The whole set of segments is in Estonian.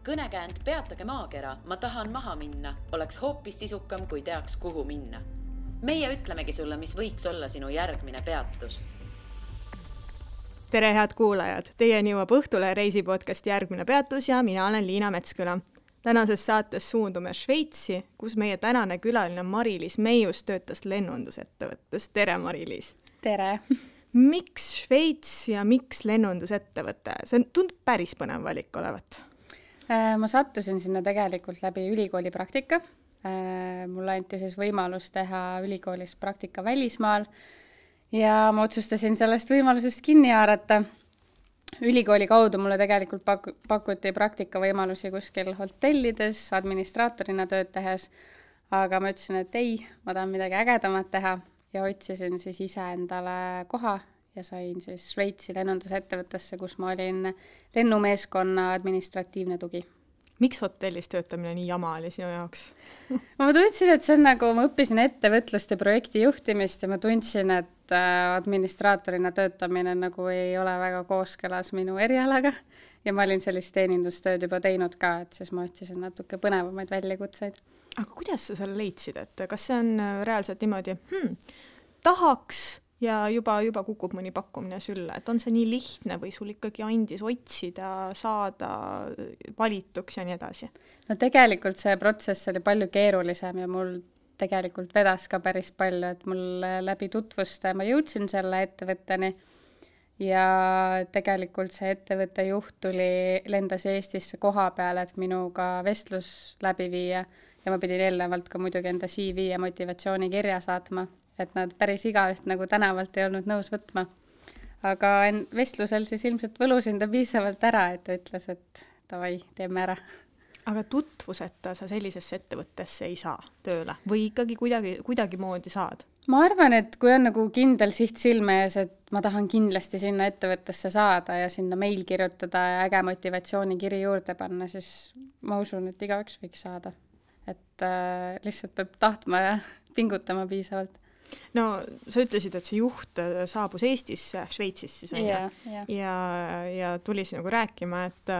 Kõnekäänd Peatage maakera, ma tahan maha minna, oleks hoopis sisukam, kui teaks, kuhu minna. Meie ütlemegi sulle, mis võiks olla sinu järgmine peatus. Tere, head kuulajad! Teieni jõuab Õhtule reisipodcast Järgmine peatus ja mina olen Liina Metsküla. Tänases saates suundume Šveitsi, kus meie tänane külaline Mari-Liis Meius töötas lennundusettevõttes. Tere, Mari-Liis! Tere! Miks Šveits ja miks lennundusettevõte? See tundub päris põnev valik olevat. Ma sattusin sinna tegelikult läbi ülikooli praktika. Mulle anti siis võimalus teha ülikoolis praktika välismaal ja ma otsustasin sellest võimalusest kinni haarata. Ülikooli kaudu mulle tegelikult pakuti praktikavõimalusi kuskil hotellides, administraatorina tööd tehes, aga ma ütlesin, et ei, ma tahan midagi ägedamat teha ja otsisin siis ise endale koha ja sain siis Šveitsi lennundusettevõttesse, kus ma olin lennumeeskonna administratiivne tugi. Miks hotellis töötamine nii jama oli sinu jaoks? Ma tundsin, et see on nagu, ma õppisin ettevõtlust ja projekti juhtimist ja ma tundsin, et administraatorina töötamine nagu ei ole väga kooskõlas minu erialaga ja ma olin sellist teenindustööd juba teinud ka, et siis ma otsisin natuke põnevamaid väljakutseid. Aga kuidas sa selle leidsid, et kas see on reaalselt niimoodi, tahaks ja juba kukub mõni pakkumine sülle, et on see nii lihtne või sul ikkagi andis otsida, saada valituks ja nii edasi? No tegelikult see protsess oli palju keerulisem ja mul tegelikult vedas ka päris palju, et mul läbi tutvuste ma jõudsin selle ettevõtteni ja tegelikult see ettevõtte juht lendas Eestisse koha peale, et minuga vestlus läbi viia ja ma pidin eelnevalt ka muidugi enda CV ja motivatsioonikirja saatma, et nad päris igaüht nagu tänavalt ei olnud nõus võtma. Aga vestlusel siis ilmselt võlusin ta piisavalt ära, et ta ütles, et davai, teeme ära. Aga tutvuseta sa sellisesse ettevõttesse ei saa tööle või ikkagi kuidagi moodi saad? Ma arvan, et kui on nagu kindel siht silme ees, et ma tahan kindlasti sinna ettevõttesse saada ja sinna meil kirjutada ja äge motivatsioonikiri juurde panna, siis ma usun, et igaüks võiks saada. Et lihtsalt peab tahtma ja pingutama piisavalt. No sa ütlesid, et see juht saabus Eestisse, Šveitsis siis on ja tuli nagu rääkima, et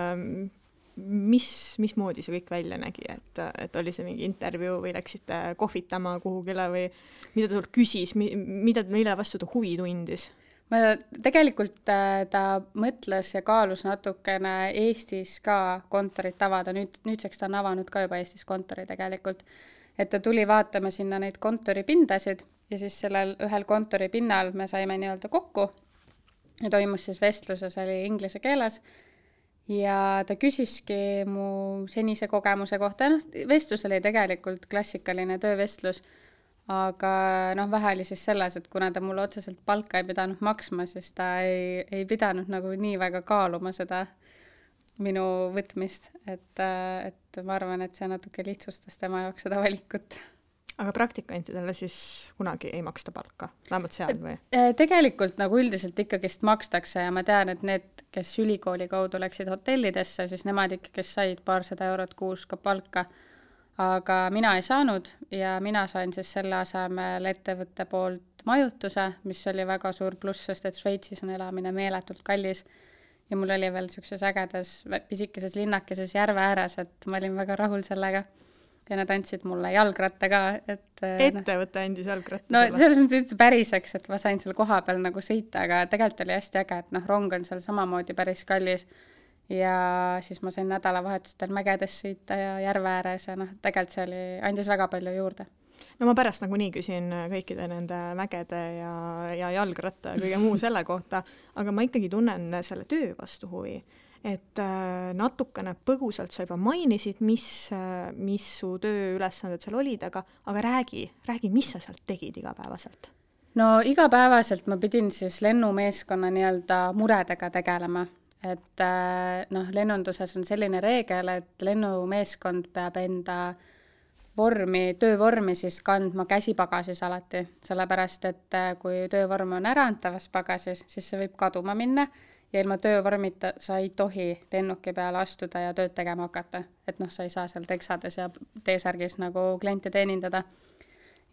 mismoodi see kõik välja nägi, et oli see mingi intervjuu või läksite kohvitama kuhugile või mida ta sult küsis, mille vastu ta huvi tundis? Tegelikult ta mõtles ja kaalus natukene Eestis ka kontorit avada, nüüdseks ta on avanud ka juba Eestis kontori tegelikult, et ta tuli vaatama sinna neid kontoripindasid ja siis sellel ühel kontoripinnal me saime nii-öelda kokku ja toimus siis vestluses, oli inglise keeles ja ta küsiski mu senise kogemuse kohta. Vestlus oli tegelikult klassikaline töövestlus, aga vähe oli siis selles, et kuna ta mulle otseselt palka ei pidanud maksma, siis ta ei pidanud nagu nii väga kaaluma seda minu võtmist, et ma arvan, et see natuke lihtsustas tema jaoks seda valikut. Aga praktikantidele siis kunagi ei maksta palka, vähemalt seal või? Tegelikult nagu üldiselt ikkagist makstakse ja ma tean, et need, kes ülikooli kaudu läksid hotellidesse, siis nemad ikkagist said paarsada eurot kuus ka palka, aga mina ei saanud ja mina sain siis selle asemel ettevõtte poolt majutuse, mis oli väga suur pluss, sest et Šveitsis on elamine meeletult kallis ja mul oli veel sellises ägedas pisikeses linnakeses järve ääres, et ma olin väga rahul sellega. Ja nad andsid mulle jalgratta ka. Ettevõte andis jalgratta sulle? No selles mõttes päriseks, et ma sain seal koha peal nagu sõita, aga tegelikult oli hästi äge, et rong on seal samamoodi päris kallis ja siis ma sain nädalavahetustel mägedes sõita ja järve ääres ja tegelikult see andis väga palju juurde. No ma pärast nagu nii küsin kõikide nende mägede ja jalgratta ja kõige muu selle kohta, aga ma ikkagi tunnen selle töö vastu huvi. Et natukene põgusalt sa juba mainisid, mis su tööülesanded seal olid, aga räägi, mis sa sealt tegid igapäevaselt? No igapäevaselt ma pidin siis lennumeeskonna nii-öelda muredega tegelema, et lennunduses on selline reegel, et lennumeeskond peab enda töövormi siis kandma käsipagasis alati, sellepärast, et kui töövorm on äraantavas pagasis, siis see võib kaduma minna ja ilma töövormita sa ei tohi lennuki peale astuda ja tööd tegema hakata. Et sa ei saa seal teksades ja T-särgis nagu kliente teenindada.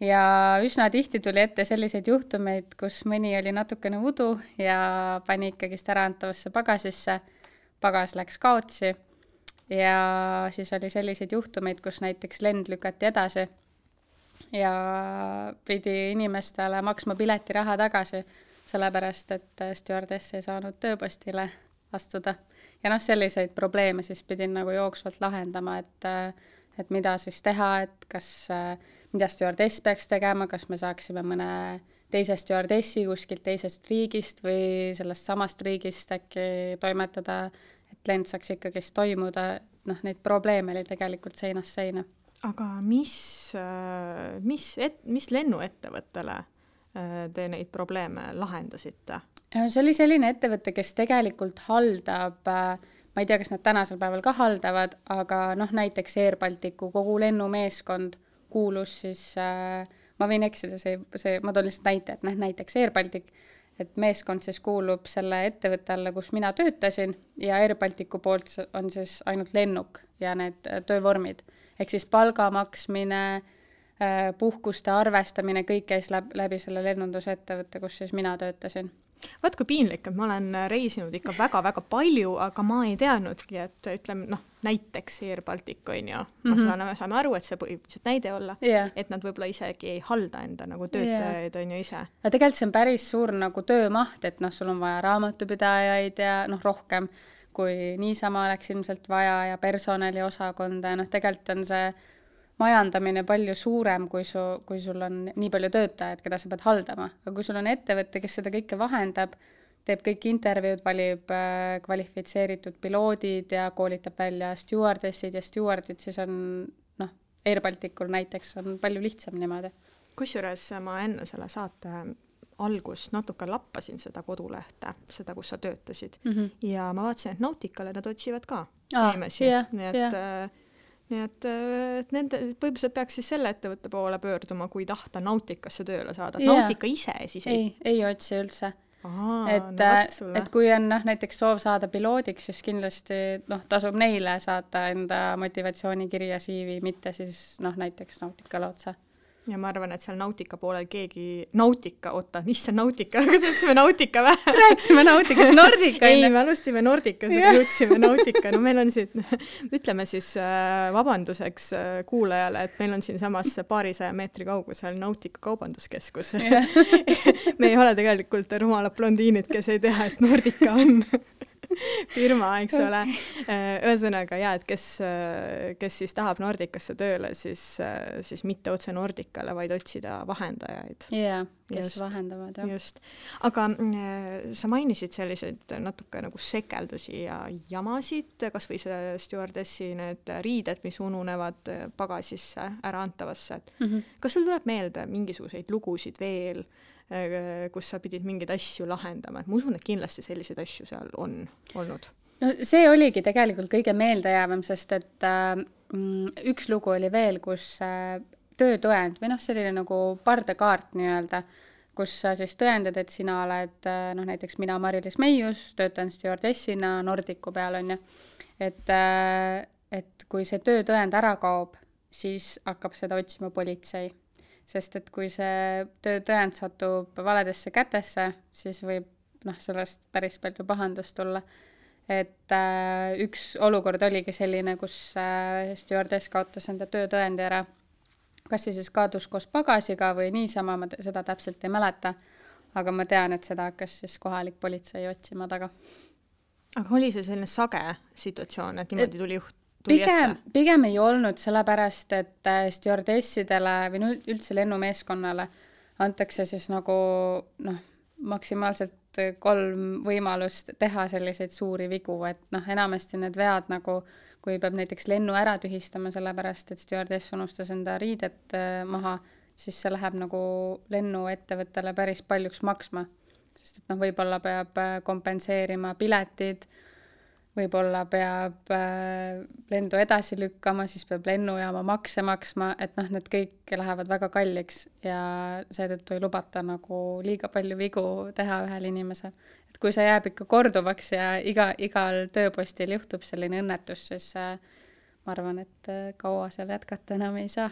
Ja üsna tihti tuli ette selliseid juhtumeid, kus mõni oli natukene udu ja pani ikkagist äraantavasse pagasisse. Pagas läks kaotsi ja siis oli selliseid juhtumeid, kus näiteks lend lükati edasi ja pidi inimestele maksma piletiraha tagasi, sellepärast et stjuardess ei saanud tööpostile astuda. Ja selliseid probleeme siis pidin nagu jooksvalt lahendama, et mida siis teha, et mida stjuardess peaks tegema, kas me saaksime mõne teise stjuardessi kuskilt teisest riigist või sellest samast riigist äkki toimetada, et lend saaks ikkagi toimuda. Neid probleeme oli tegelikult seinast seina. Aga mis lennuettevõttele te neid probleeme lahendasite? See oli selline ettevõte, kes tegelikult haldab, ma ei tea, kas nad tänasel päeval ka haldavad, aga näiteks Air Balticu kogu lennumeeskond kuulus siis ma võin eksida, ma toon lihtsalt näite, et näiteks Air Baltic, et meeskond siis kuulub selle ettevõtte alla, kus mina töötasin ja Air Balticu poolt on siis ainult lennuk ja need töövormid. Ehk siis palga maksmine, puhkuste arvestamine, kõik käis läbi selle lennundusettevõtte, kus siis mina töötasin. Vaat kui piinlik, et ma olen reisinud ikka väga-väga palju, aga ma ei teadnudki, et ütleme, näiteks Air Baltic on ju, saame aru, et see põhimõtteliselt näide olla, et nad võib-olla isegi ei halda enda nagu töötajaid on ju ise. Ja tegelikult see on päris suur nagu töömaht, et sul on vaja raamatupidajaid ja rohkem kui niisama oleks ilmselt vaja ja personaliosakonda ja tegelikult on see majandamine palju suurem, kui sul on nii palju töötajaid, keda sa pead haldama. Aga kui sul on ettevõte, kes seda kõike vahendab, teeb kõik intervjuud, valib kvalifitseeritud piloodid ja koolitab välja stjuardessid ja stjuardid, siis on Air Balticul näiteks on palju lihtsam niimoodi. Kusjuures ma enne selle saate algust natuke lappasin seda kodulehte, seda, kus sa töötasid. Ja ma vaatasin, et Nauticale nad otsivad ka inimesi. Nii et nende põhimõtteliselt peaks siis selle ettevõtte poole pöörduma, kui tahta Nauticasse tööle saada. Nautica ise siis ei otsi üldse. Et kui on näiteks soov saada piloodiks, siis kindlasti tasub neile saata enda motivatsioonikirja CV, mitte siis näiteks Nauticale otsa. Ja ma arvan, et seal Nautica poolel Nautica, kas me ütlesime Nautica või? Rääksime Nauticas, Nordica. Ei, me alustime Nordicas, aga jõudsime Nautica. Meil on siit, ütleme siis vabanduseks kuulajale, et meil on siin samas paarisaja meetri kaugusel Nautica kaubanduskeskus. Me ei ole tegelikult rumalad blondiinid, kes ei tea, et Nordica on firma, eks ole. Ühesõnaga, et kes siis tahab Nordicasse tööle, siis mitte otse Nordicale, vaid otsida vahendajaid. Kes vahendavad. Just. Aga sa mainisid selliseid natuke nagu sekeldusi ja jamasid, kas või see stjuardessi need riided, mis ununevad pagasisse ära antavasse. Kas sul tuleb meelde mingisuguseid lugusid veel, kus sa pidid mingeid asju lahendama, et ma usun, et kindlasti selliseid asju seal on olnud. See oligi tegelikult kõige meeldejäävam, sest et üks lugu oli veel, kus töötõend või selline nagu pardakaart nii-öelda, kus sa siis tõendad, et sina oled, näiteks mina Mari-Liis Meius, töötan stjuardessina Nordicu peal on ju, et kui see töötõend ära kaob, siis hakkab seda otsima politsei. Sest et kui see töötõend satub valedesse kätesse, siis võib sellest päris palju pahandust tulla. Et üks olukord oligi selline, kus stjuardess kaotas enda töötõendi ära. Kas see siis kaadus koos pagasiga või niisama, ma seda täpselt ei mäleta, aga ma tean, et seda hakkas siis kohalik politsei otsima taga. Aga oli see selline sage situatsioon, et niimoodi tuli Pigem ei olnud, sellepärast, et stjuardessidele või üldse lennumeeskonnale antakse siis nagu maksimaalselt 3 võimalust teha selliseid suuri vigu, et enamasti need vead nagu, kui peab näiteks lennu ära tühistama, sellepärast, et stjuardess unustas enda riidet maha, siis see läheb nagu lennuettevõttele päris paljuks maksma, sest et võib-olla peab kompenseerima piletid, võib-olla peab lendu edasi lükkama, siis peab lennujaama makse maksma, et need kõik lähevad väga kalliks ja seetõttu ei lubata nagu liiga palju vigu teha ühel inimesel. Et kui see jääb ikka korduvaks ja igal tööpostil juhtub selline õnnetus, siis ma arvan, et kaua seal jätkata enam ei saa.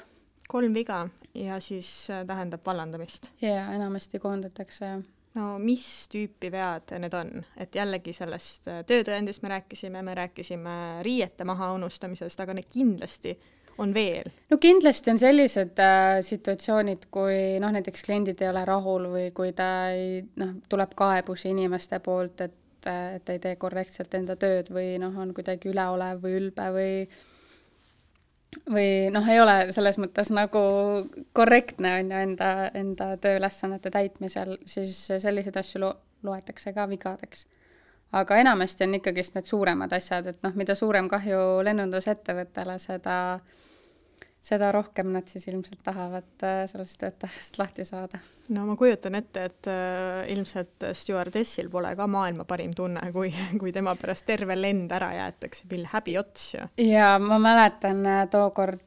3 viga ja siis tähendab vallandamist. Ja enamasti koondatakse. No mis tüüpi vead need on? Et jällegi sellest töötõendist me rääkisime riiete maha unustamisest, aga need kindlasti on veel. No kindlasti on sellised situatsioonid, kui näiteks kliendid ei ole rahul või kui ta tuleb kaebusi inimeste poolt, et ei tee korrektselt enda tööd või on kuidagi üleolev või ülbe või ei ole selles mõttes nagu korrektne on ju enda tööülesannete täitmisel, siis selliseid asju loetakse ka vigadeks. Aga enamasti on ikkagi need suuremad asjad, et mida suurem kahju lennundusettevõttele, seda rohkem nad siis ilmselt tahavad sellest töötajast lahti saada. No ma kujutan ette, et ilmselt stewardessil pole ka maailma parim tunne, kui tema pärast terve lend ära jäetakse, mil häbi ots. Ja ma mäletan tookord,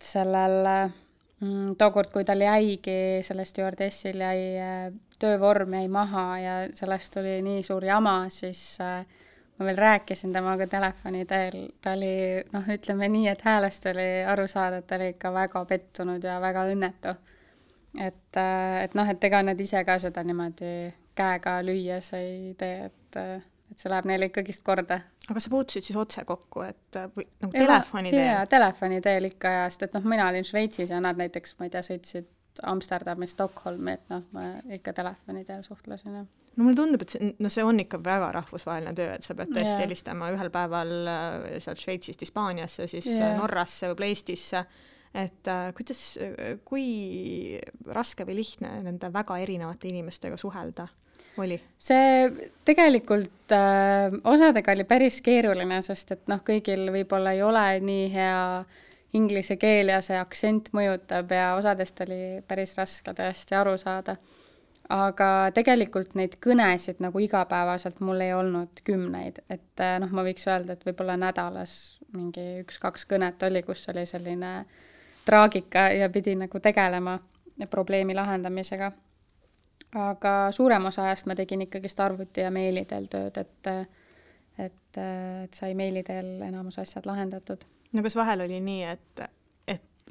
kui tal jäigi, selle stewardessil jäi töövorm jäi maha ja sellest oli nii suur jama, siis ma veel rääkisin temaga telefoni teel, ta oli, ütleme nii, et häälest oli aru saada, et ta oli ikka väga pettunud ja väga õnnetu. Et ega nad ise ka seda niimoodi käega lüües ei tee, et see läheb neile ikkagist korda. Aga sa puutusid siis otse kokku, et või telefoni teel? Jaa, telefoni teel ikka ja, sest mina olin Šveitsis ja nad näiteks, ma ei tea, sõitsid Amsterdami, Stockholmi, et ma ikka telefoni teel suhtlesin. Ja. No mulle tundub, et see on ikka väga rahvusvaheline töö, et sa pead tõesti helistama ühel päeval sealt Šveitsist Hispaaniasse, siis Norrasse või Eestisse, et kui raske või lihtne nende väga erinevate inimestega suhelda oli? See tegelikult osadega oli päris keeruline, sest et kõigil võib-olla ei ole nii hea inglise keel ja see aktsent mõjutab ja osadest oli päris raske tõesti aru saada. Aga tegelikult neid kõnesid nagu igapäevaselt mul ei olnud 10, et ma võiks öelda, et võib-olla nädalas mingi 1-2 kõnet oli, kus oli selline traagika ja pidi nagu tegelema probleemi lahendamisega. Aga suurem osa ajast ma tegin ikkagist arvuti ja meili teel tööd, et sai meili teel enamus asjad lahendatud. No kas vahel oli nii, et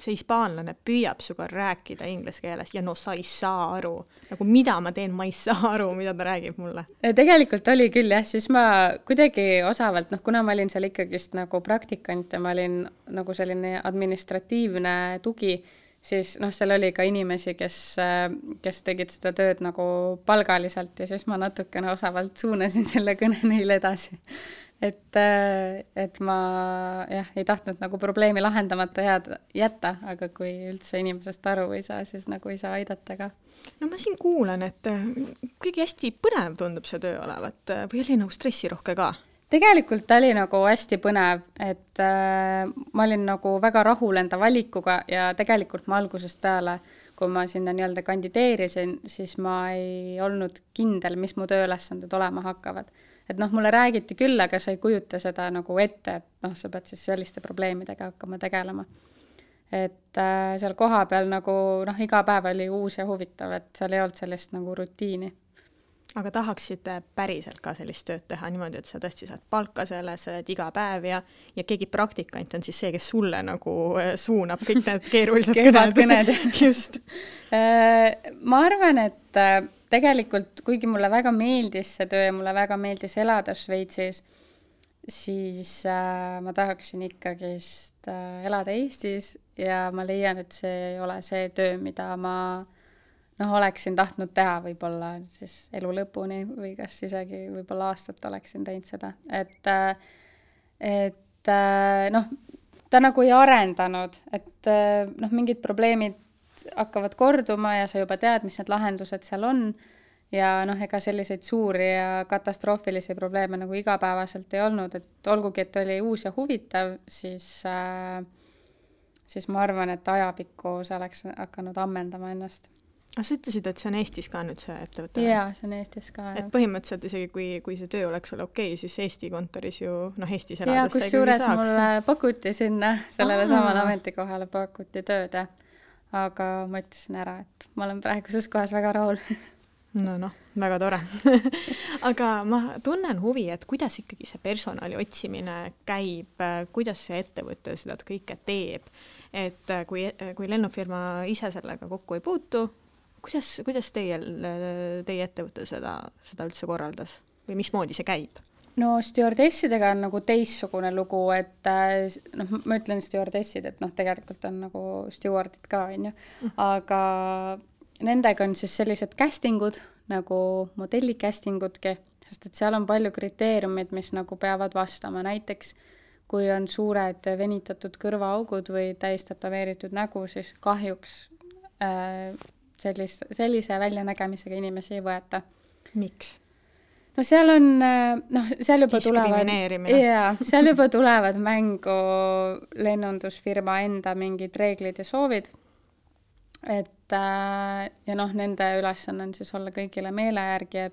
see hispaanlane püüab suga rääkida inglise keeles ja sa ei saa aru, nagu mida ma teen, ma ei saa aru, mida ta räägib mulle. Tegelikult oli küll jah, siis ma kuidagi osavalt, kuna ma olin seal ikkagist nagu praktikant ja ma olin nagu selline administratiivne tugi, siis seal oli ka inimesi, kes tegid seda tööd nagu palgaliselt ja siis ma natukene osavalt suunasin selle kõne neile edasi. Et ma ei tahtnud nagu probleemi lahendamata jätta, aga kui üldse inimesest aru ei saa, siis nagu ei saa aidata ka. No ma siin kuulan, et kõige hästi põnev tundub see töö olevat või oli nagu stressirohke ka? Tegelikult ta oli nagu hästi põnev, et ma olin nagu väga rahul enda valikuga ja tegelikult ma algusest peale, kui ma sinna nii-öelda kandideerisin, siis ma ei olnud kindel, mis mu tööülesanded olema hakkavad. Et mulle räägiti küll, aga sa ei kujuta seda nagu ette, et sa pead siis selliste probleemidega hakkama tegelema. Et seal koha peal nagu iga päev oli uus ja huvitav, et seal ei olnud sellist nagu rutiini. Aga tahaksid päriselt ka sellist tööd teha niimoodi, et sa tõesti saad palka selles iga päev ja keegi praktikant on siis see, kes sulle nagu suunab kõik need keerulised kõned. Just. Ma arvan, et tegelikult, kuigi mulle väga meeldis see töö ja mulle väga meeldis elada Šveitsis, siis ma tahaksin ikkagist elada Eestis ja ma leian, et see ei ole see töö, mida ma oleksin tahtnud teha võib-olla siis elu lõpuni või kas isegi võib-olla aastat oleksin teinud seda. Et ta nagu ei arendanud, et mingid probleemid hakkavad korduma ja sa juba tead, mis need lahendused seal on ja ega selliseid suuri ja katastroofilisi probleeme nagu igapäevaselt ei olnud, et olgugi, et oli uus ja huvitav, siis ma arvan, et ajapikku see oleks hakanud ammendama ennast. Aga sa ütlesid, et see on Eestis ka nüüd see ettevõte? Jaa, see on Eestis ka. Et põhimõtteliselt isegi, kui see töö oleks ole okei, siis Eesti kontoris ju, Eestis elades ja, kus juures mulle pakuti sinna, sellele samale ametikohale pakuti tööd, aga ma ütlesin ära, et ma olen praeguses kohas väga rahul. No, väga tore. Aga ma tunnen huvi, et kuidas ikkagi see personali otsimine käib, kuidas see ettevõte seda kõike teeb, et kui lennufirma ise sellega kokku ei puutu, kuidas teie ettevõte seda üldse korraldas või mismoodi see käib? No stjuardessidega on nagu teissugune lugu, et noh, ma ütlen stjuardessid, et noh, tegelikult on nagu stjuardid ka, on ju, aga nendega on siis sellised castingud nagu modelli castingudki, sest et seal on palju kriteeriumid, mis nagu peavad vastama, näiteks kui on suured venitatud kõrvaaugud või täistatoveeritud nägu, siis kahjuks sellise väljanägemisega inimesi ei võeta. Miks? No seal on, seal juba seal juba tulevad mängu lennundusfirma enda mingid reeglid ja soovid, et ja noh, nende ülesanne on siis olla kõigile meele järgi ja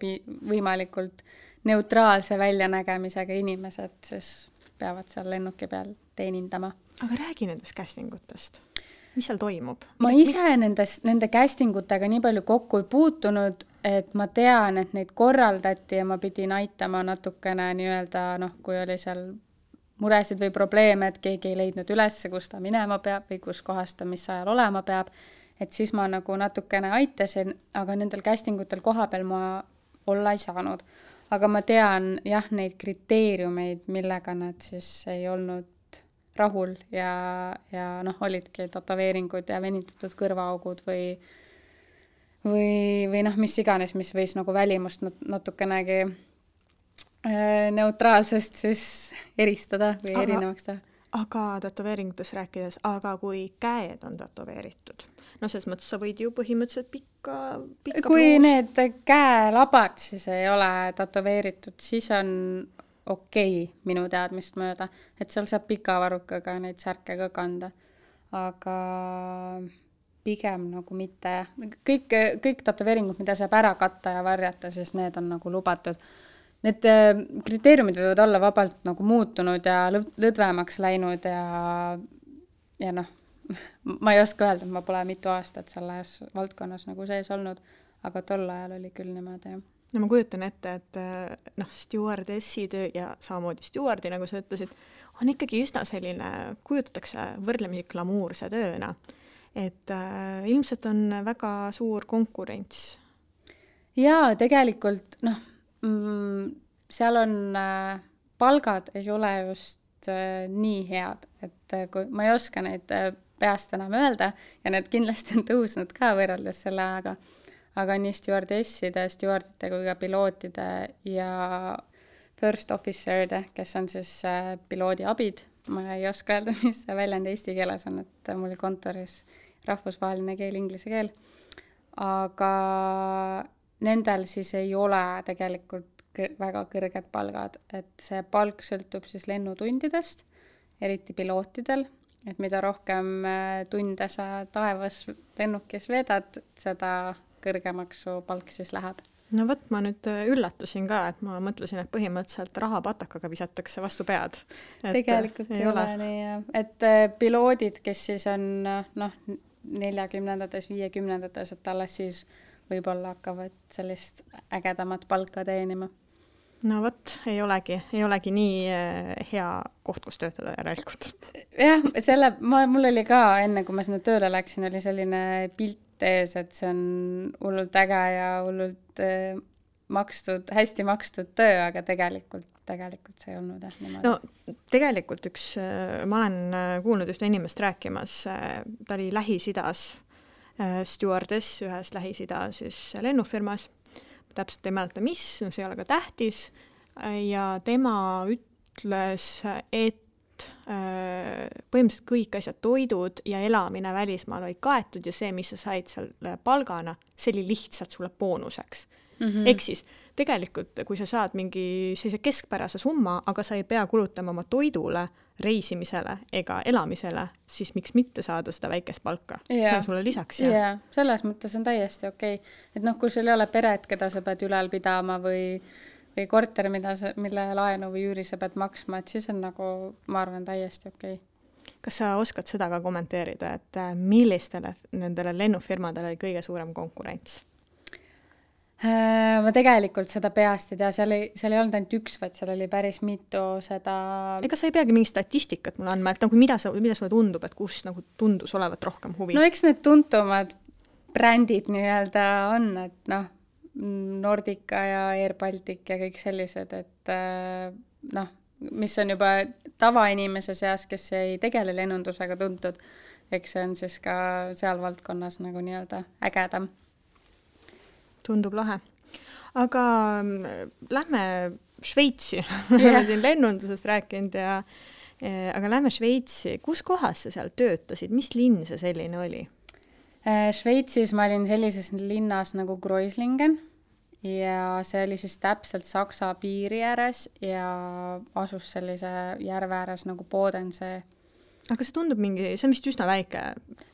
võimalikult neutraalse väljanägemisega inimesed, siis peavad seal lennuki peal teenindama. Aga räägi nendest castingutest. Mis seal toimub? Ma ise nende castingutega nii palju kokku ei puutunud, et ma tean, et neid korraldati ja ma pidin aitama natukene nii-öelda, noh, kui oli seal muresid või probleeme, et keegi ei leidnud üles, kus ta minema peab või kus kohas ta mis ajal olema peab, et siis ma nagu natukene aitasin, aga nendel castingutel koha peal ma olla ei saanud. Aga ma tean jah, neid kriteeriumeid, millega nad siis ei olnud rahul ja noh, olidki tatoveeringud ja venitatud kõrvaaugud või noh, mis iganes, mis võis nagu välimust natukenegi neutraalsest siis eristada või erinevaks teha. Aga tatoveeringutes rääkides, aga kui käed on tatoveeritud, no selles mõttes sa võid ju põhimõtteliselt pikka kui need käelabad siis ei ole tatoveeritud, siis on okei, minu teadmist mööda, et seal saab pika varrukaga neid särke ka kanda, aga pigem nagu mitte. Kõik tatoveeringud, mida saab ära katta ja varjata, siis need on nagu lubatud. Need kriteeriumid võivad olla vabalt nagu muutunud ja lõdvemaks läinud ja noh, ma ei oska öelda, et ma pole mitu aastat selles valdkonnas nagu sees olnud, aga tol ajal oli küll niimoodi, jah. No ma kujutan ette, et noh, stjuardessi töö ja samamoodi stjuardi, nagu sa ütlesid, on ikkagi üsna selline, kujutatakse võrdlemisi glamuurse tööna. Et ilmselt on väga suur konkurents. Jaa, tegelikult, noh, seal on, palgad ei ole just nii head, et kui ma ei oska neid peast enam öelda ja need kindlasti on tõusnud ka võrreldes selle ajaga, aga nii stjuardesside, stjuardite kui ka pilootide ja first officer'de, kes on siis piloodi abid. Ma ei oska öelda, mis see väljend eesti keeles on, et mul kontoris rahvusvaheline keel, inglise keel. Aga nendel siis ei ole tegelikult väga kõrged palgad, et see palk sõltub siis lennutundidest, eriti pilootidel, et mida rohkem tunde sa taevas lennukis vedad, seda kõrgemaks su palk siis läheb. No võt, ma nüüd üllatusin ka, et ma mõtlesin, et põhimõtteliselt rahapatakaga visatakse vastu pead. Tegelikult ei ole nii, et piloodid, kes siis on noh, 40-ndates, 50-ndates, et alles siis võib-olla hakkavad sellist ägedamat palka teenima. No võt, ei olegi nii hea koht, kus töötada järelikult. Jah, mul oli ka enne, kui ma sinna tööle läksin, oli selline pilt ees, et see on hullult äge ja hullult hästi makstud töö, aga tegelikult see ei olnud niimoodi. No tegelikult ma olen kuulnud ühte inimest rääkimas, ta oli Lähis-Idas stjuardess ühes Lähis-Ida siis lennufirmas, täpselt ei mäleta mis, no see ei ole ka tähtis ja tema ütles, et põhimõtteliselt kõik asjad, toidud ja elamine välismaal olid kaetud ja see, mis sa said seal palgana, see oli lihtsalt sulle boonuseks. Ehk siis tegelikult, kui sa saad mingi sellise keskpärase summa, aga sa ei pea kulutama oma toidule, reisimisele ega elamisele, siis miks mitte saada seda väikest palka? See on sulle lisaks. Ja, selles mõttes on täiesti okei. Et noh, kui sul ei ole peret, keda sa pead ülal pidama või korter, mille laenu või üüri sa pead maksma, et siis on nagu, ma arvan, täiesti okei. Kas sa oskad seda ka kommenteerida, et millistele nendele lennufirmadele oli kõige suurem konkurents? Ma tegelikult seda peast ei tea, seal ei olnud ainult üks, vaid seal oli päris mitu seda... Ega sa ei peagi mingi statistikat mulle andma, et nagu mida sulle tundub, et kus nagu tundus olevat rohkem huvi? No eks need tuntumad brändid nii-öelda on, et noh, Nordica ja Air Baltic ja kõik sellised, et noh, mis on juba tavainimese seas, kes ei tegele lennundusega tuntud, eks see on siis ka seal valdkonnas nagu nii-öelda ägedam. Tundub lahe. Aga lähme Šveitsi. Oleme siin lennundusest rääkinud aga lähme Šveitsi. Kus kohas sa seal töötasid? Mis linn see selline oli? Šveitsis ma olin sellises linnas nagu Kreuzlingen ja see oli siis täpselt Saksa piiri ääres ja asus sellise järve ääres nagu Bodensee. Aga see tundub see on vist üsna väike.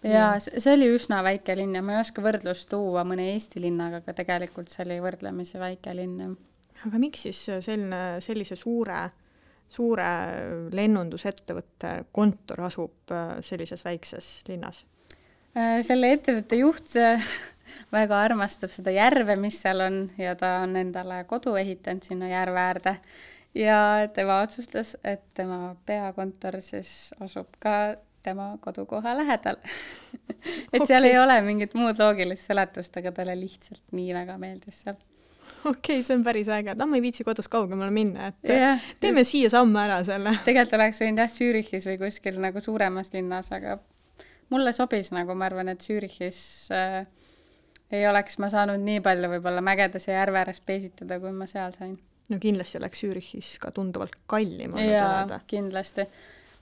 Ja see oli üsna väike linn ja ma ei oska võrdlust tuua mõne Eesti linnaga, aga tegelikult see oli võrdlemisi väike linn. Aga miks siis sellise suure lennundusettevõtte kontor asub sellises väikses linnas? Selle ettevõtte juht väga armastab seda järve, mis seal on ja ta on endale kodu ehitanud sinna järve äärde. Ja tema otsustas, et tema peakontor siis asub ka tema kodukoha lähedal. Et seal ei ole mingit muud loogilist seletust, aga talle lihtsalt nii väga meeldis seal. Okei, see on päris äge. Ma ei viitsi kodus kaugemale minna, et teeme siia samme ära selle. Tegelikult oleks võinud Zürichis või kuskil nagu suuremas linnas, aga mulle sobis nagu, ma arvan, et Zürichis ei oleks ma saanud nii palju võib-olla mägedes ja järve ääres peesitada, kui ma seal sain. No kindlasti oleks Zürichis ka tunduvalt kallim. Jaa, kindlasti.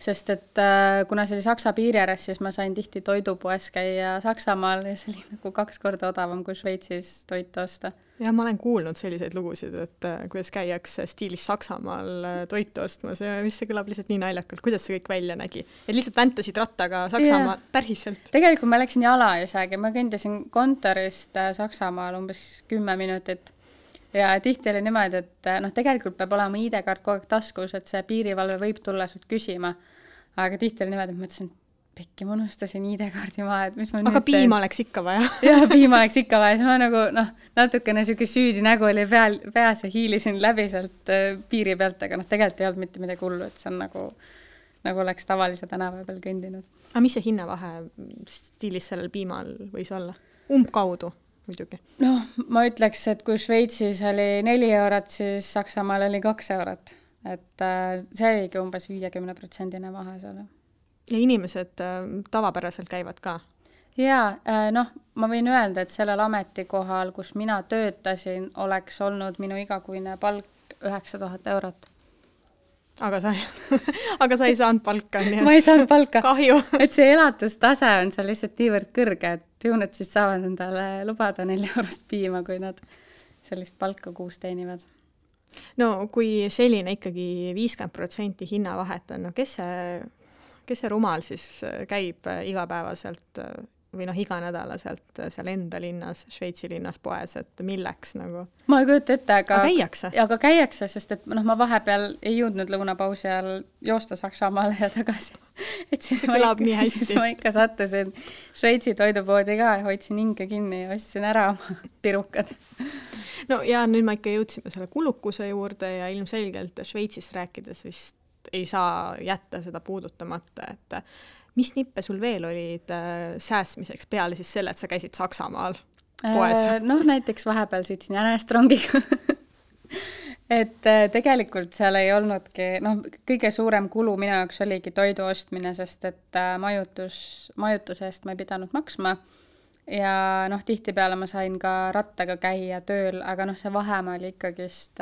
Sest et kuna see oli Saksa piiri ääres, siis ma sain tihti toidupoes käia Saksamaal ja see oli nagu 2 korda odavam kui Šveitsis toitu osta. Ja ma olen kuulnud selliseid lugusid, et kuidas käiakse stiilis Saksamaal toitu ostmas ja mis see kõlab lihtsalt nii naljakalt, kuidas see kõik välja nägi. Et lihtsalt väntasid rattaga Saksamaal päriselt. Tegelikult ma läksin jala isegi, ma kõndisin kontorist Saksamaal umbes 10 minutit. Ja tihti oli niimoodi, et tegelikult peab olema ID-kaart kogu aeg taskus, et see piirivalve võib tulla sult küsima. Aga tihti oli niimoodi, et mõtlesin, pekki, ma unustasin ID-kaardi maha, et mis ma aga piima oleks ikka vaja. Jah, piima oleks ikka vaja. Ma nagu, natukene selline süüdi nägu oli peas ja hiilisin läbi sealt piiri pealt, aga tegelikult ei olnud mitte midagi hullu, et see on nagu oleks tavalise tänava peal kõndinud. Aga mis see hinnavahe stiilis sellel piimal võis olla? Umbkaudu? Muidugi. Ma ütleks, et kui Šveitsis oli 4 eurot, siis Saksamaal oli 2 eurot. Et see oligi umbes 50% vahe seal. Ja inimesed tavapäraselt käivad ka? Jaa, ma võin öelda, et sellel ametikohal, kus mina töötasin, oleks olnud minu igakuine palk 9000 eurot. Aga sa ei saanud palka. Ma ei saanud palka. Kahju. Et see elatustase on seal lihtsalt niivõrd kõrge, et ju nad siis saavad endale lubada 4 eurost piima, kui nad sellist palka kuus teenivad. No kui selline ikkagi 50% hinnavahet on, kes see rumal siis käib igapäevaselt või iga nädalaselt seal enda linnas, Šveitsi linnas poes, et milleks nagu? Ma ei kujuta ette, aga käiakse, sest et ma vahepeal ei jõudnud lõunapausi ajal joosta Saksamaale ja tagasi. Et see kõlab nii hästi. Siis ma ikka sattusin Šveitsi toidupoodi ka ja hoidsin hinge kinni ja ostsin ära oma pirukad. No ja nüüd ma ikka jõudsime selle kulukuse juurde ja ilmselgelt Šveitsist rääkides vist ei saa jätta seda puudutamata, et mis nippe sul veel olid sääsmiseks peale siis selle, et sa käisid Saksamaal poes? Näiteks vahepeal sõitsin jänestrongiga. Et tegelikult seal ei olnudki, kõige suurem kulu minu jaoks oligi toidu ostmine, sest et majutuse eest ma ei pidanud maksma ja tihtipeale ma sain ka rattaga käia tööl, aga see vahemaa oli ikkagist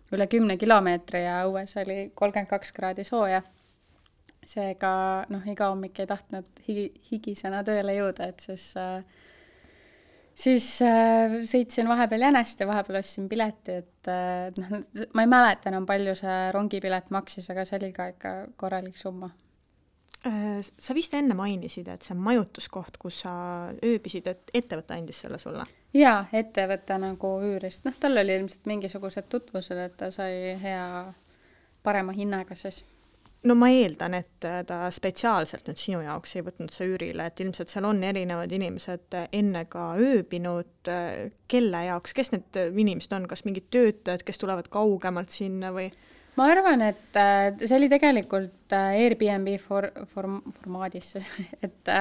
üle 10 kilomeetri ja õues oli 32 kraadi sooja. Seega iga hommik ei tahtnud higisena tööle jõuda, et siis sõitsin vahepeal jänest ja vahepeal ostsin pileti, et ma ei mäleta enam palju see rongipilet maksis, aga see oli ka ikka korralik summa. Sa vist enne mainisid, et see majutuskoht, kus sa ööbisid, et ettevõte andis selle sulle? Jaa, ettevõte nagu üürist. Tal oli ilmselt mingisugused tutvused, et ta sai parema hinnaga siis. No ma eeldan, et ta spetsiaalselt nüüd sinu jaoks ei võtnud see üürile, et ilmselt seal on erinevad inimesed enne ka ööbinud, kelle jaoks, kes need inimesed on, kas mingid töötajad, kes tulevad kaugemalt sinna või? Ma arvan, et see oli tegelikult Airbnb formaadis, et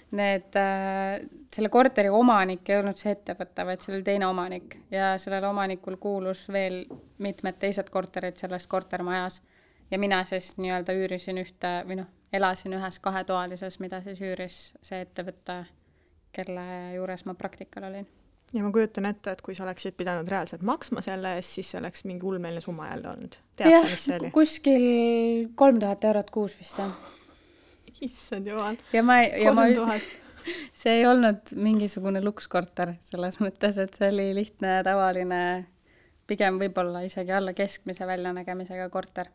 selle korteri omanik ei olnud see ettevõte, vaid see oli teine omanik ja sellel omanikul kuulus veel mitmed teised korterid selles kortermajas ja mina siis nii-öelda üürisin elasin ühes 2-toalises, mida siis üüris see ettevõte, kelle juures ma praktikal olin. Ja ma kujutan ette, et kui sa oleksid pidanud reaalselt maksma selle eest, siis see oleks mingi ulmeline summa jälle olnud. Tead sa, mis see oli? Kuskil 3000 eurot kuus vist. Issand jumal. Ja ma see ei olnud mingisugune lukskorter selles mõttes, et see oli lihtne, tavaline, pigem võib-olla isegi alla keskmise väljanägemisega korter.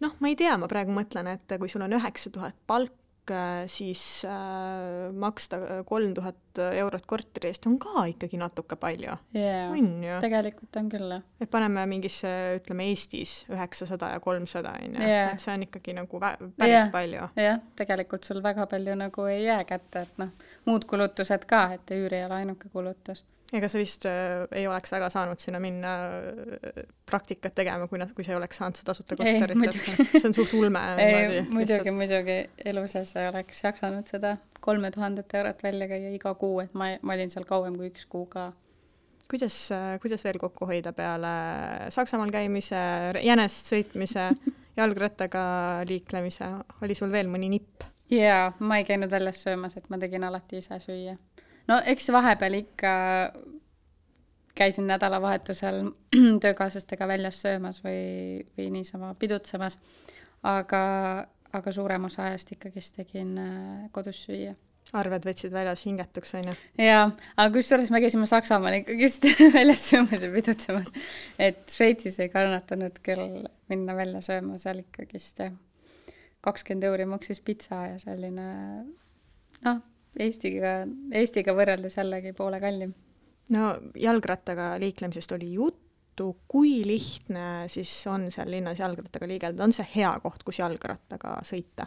Noh, ma ei tea, ma praegu mõtlen, et kui sul on 9000 palk, siis maksta 3000 eurot korteri eest on ka ikkagi natuke palju. On ju? Tegelikult on küll. Et paneme mingisse, ütleme Eestis 900 ja 300, et see on ikkagi nagu päris palju. Jah, tegelikult sul väga palju nagu ei jää kätte, et muud kulutused ka, et üüri ei ole ainuke kulutus. Ega sa vist ei oleks väga saanud sinna minna praktikat tegema, kui sa ei oleks saanud seda tasuta korterit. See on suht ulme. Muidugi elu sees ei oleks jaksanud seda 3000 eurot välja käia iga kuu, et ma olin seal kauem kui 1 kuu ka. Kuidas veel kokku hoida peale Saksamaal käimise, jänest sõitmise, jalgrattaga liiklemise? Oli sul veel mõni nipp? Jaa, ma ei käinud väljas söömas, et ma tegin alati ise süüa. No eks vahepeal ikka käisin nädalavahetusel töökaaslastega väljas söömas või niisama pidutsemas, aga suurem osa ajast ikkagist tegin kodus süüa. Arved võtsid väljas hingetuks, on ju? Jaa, aga kusjuures me käisime Saksamaal ikkagist väljas söömas ja pidutsemas, et Šveitsis ei kannatanud küll minna välja sööma, seal ikkagist 20 € maksis pitsa ja selline, Eestiga võrreldes jällegi poole kallim. No jalgrattaga liiklemisest oli juttu, kui lihtne siis on seal linnas jalgrattaga liigelda? On see hea koht, kus jalgrattaga sõita?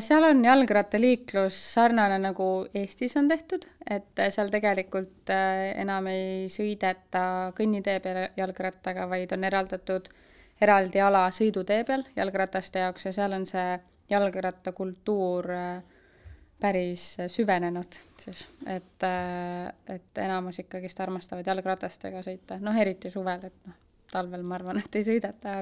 Seal on jalgrattaliiklus sarnane nagu Eestis on tehtud, et seal tegelikult enam ei sõideta kõnnitee peal jalgrattaga, vaid on eraldi ala sõidutee peal jalgrataste jaoks ja seal on see jalgrattakultuur päris süvenenud, siis, et enamus ikkagist armastavad jalgratastega sõita, eriti suvel, et talvel ma arvan, et ei sõideta,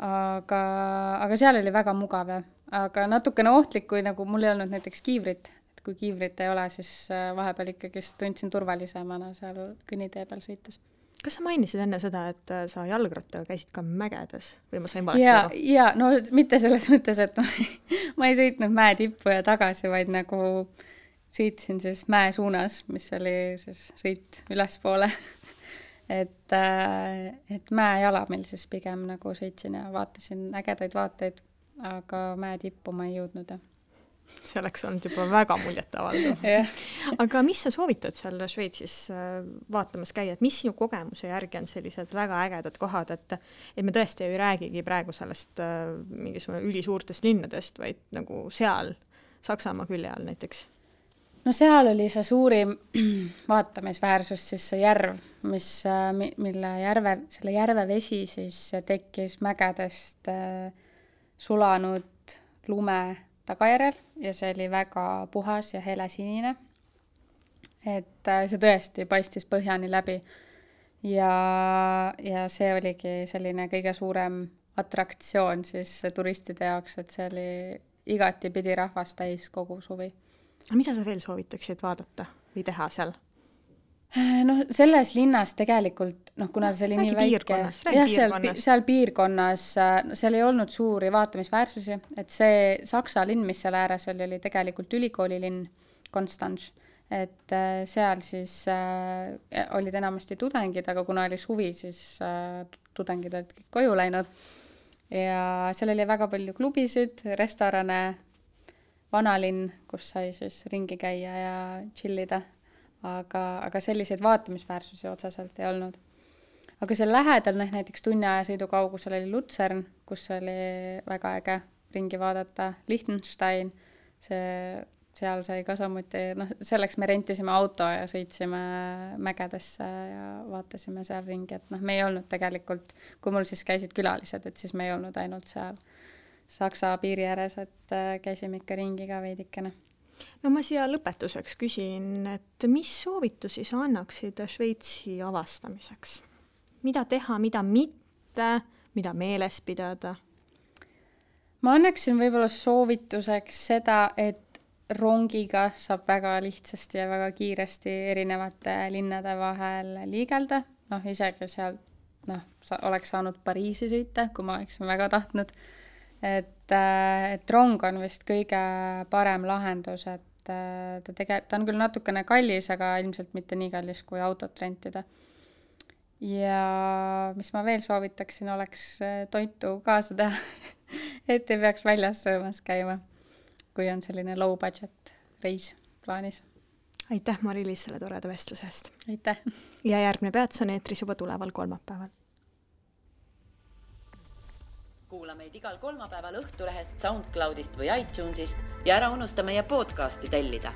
aga seal oli väga mugav, aga natukene ohtlik, kui nagu mul ei olnud näiteks kiivrit, et kui kiivrit ei ole, siis vahepeal ikkagist tundsin turvalisemana seal kõnnitee peal sõites. Kas sa mainisid enne seda, et sa jalgrattaga käisid ka mägedes või ma sain valesti aru? Ja, no mitte selles mõttes, et ma ei sõitnud mäe tippu ja tagasi, vaid nagu sõitsin siis mäe suunas, mis oli siis sõit ülespoole. et mäe jalamil siis pigem nagu sõitsin ja vaatasin ägedaid vaateid, aga mäe tippu ma ei jõudnud. See oleks olnud juba väga muljetavaldav. Aga mis sa soovitad seal Šveitsis vaatamas käia, et mis sinu kogemuse järgi on sellised väga ägedad kohad, et me tõesti ei räägigi praegu sellest mingisugune ülisuurtest linnadest, vaid nagu seal Saksamaa külje all näiteks? No seal oli see suurim vaatamisväärsus siis see järv, selle järve vesi siis tekkis mägedest sulanud lume tagajärjel ja see oli väga puhas ja helesinine. Et see tõesti paistis põhjani läbi ja see oligi selline kõige suurem atraktsioon siis turistide jaoks, et see oli igati pidi rahvast täis kogu suvi. Mida sa veel soovitaksid vaadata või teha seal? Selles linnas tegelikult, kuna see oli nii väike, seal piirkonnas, seal ei olnud suuri vaatamisväärsusi, et see Saksa linn, mis seal ääres oli tegelikult ülikoolilinn Konstanz, et seal siis olid enamasti tudengid, aga kuna oli suvi, siis tudengid olid kõik koju läinud ja seal oli väga palju klubisid, restorane, vanalinn, kus sai siis ringi käia ja chillida. Aga selliseid vaatamisväärsusi otseselt ei olnud. Aga seal lähedal näiteks tunniaja sõidu kaugusel oli Luzern, kus oli väga äge ringi vaadata, Liechtenstein, seal sai ka samuti, selleks me rentisime auto ja sõitsime mägedesse ja vaatasime seal ringi, et me ei olnud tegelikult, kui mul siis käisid külalised, et siis me ei olnud ainult seal Saksa piiri ääres, et käisime ikka ringi ka veidikene. No ma siia lõpetuseks küsin, et mis soovitusi sa annaksid Šveitsi avastamiseks? Mida teha, mida mitte, mida meeles pidada? Ma annaksin võib-olla soovituseks seda, et rongiga saab väga lihtsasti ja väga kiiresti erinevate linnade vahel liigelda. Isegi seal oleks saanud Pariisi sõita, kui ma oleksin väga tahtnud. Et rong on vist kõige parem lahendus, et ta on küll natukene kallis, aga ilmselt mitte nii kallis kui autot rentida. Ja mis ma veel soovitaksin, oleks toitu kaasa teha, et ei peaks väljas söömas käima, kui on selline low budget reis plaanis. Aitäh, Mari-Liis, selle toreda vestluse eest. Aitäh. Ja järgmine peats on eetris juba tuleval kolmapäeval. Kuula meid igal kolmapäeval Õhtulehest, SoundCloudist või iTunesist ja ära unusta meie podcasti tellida.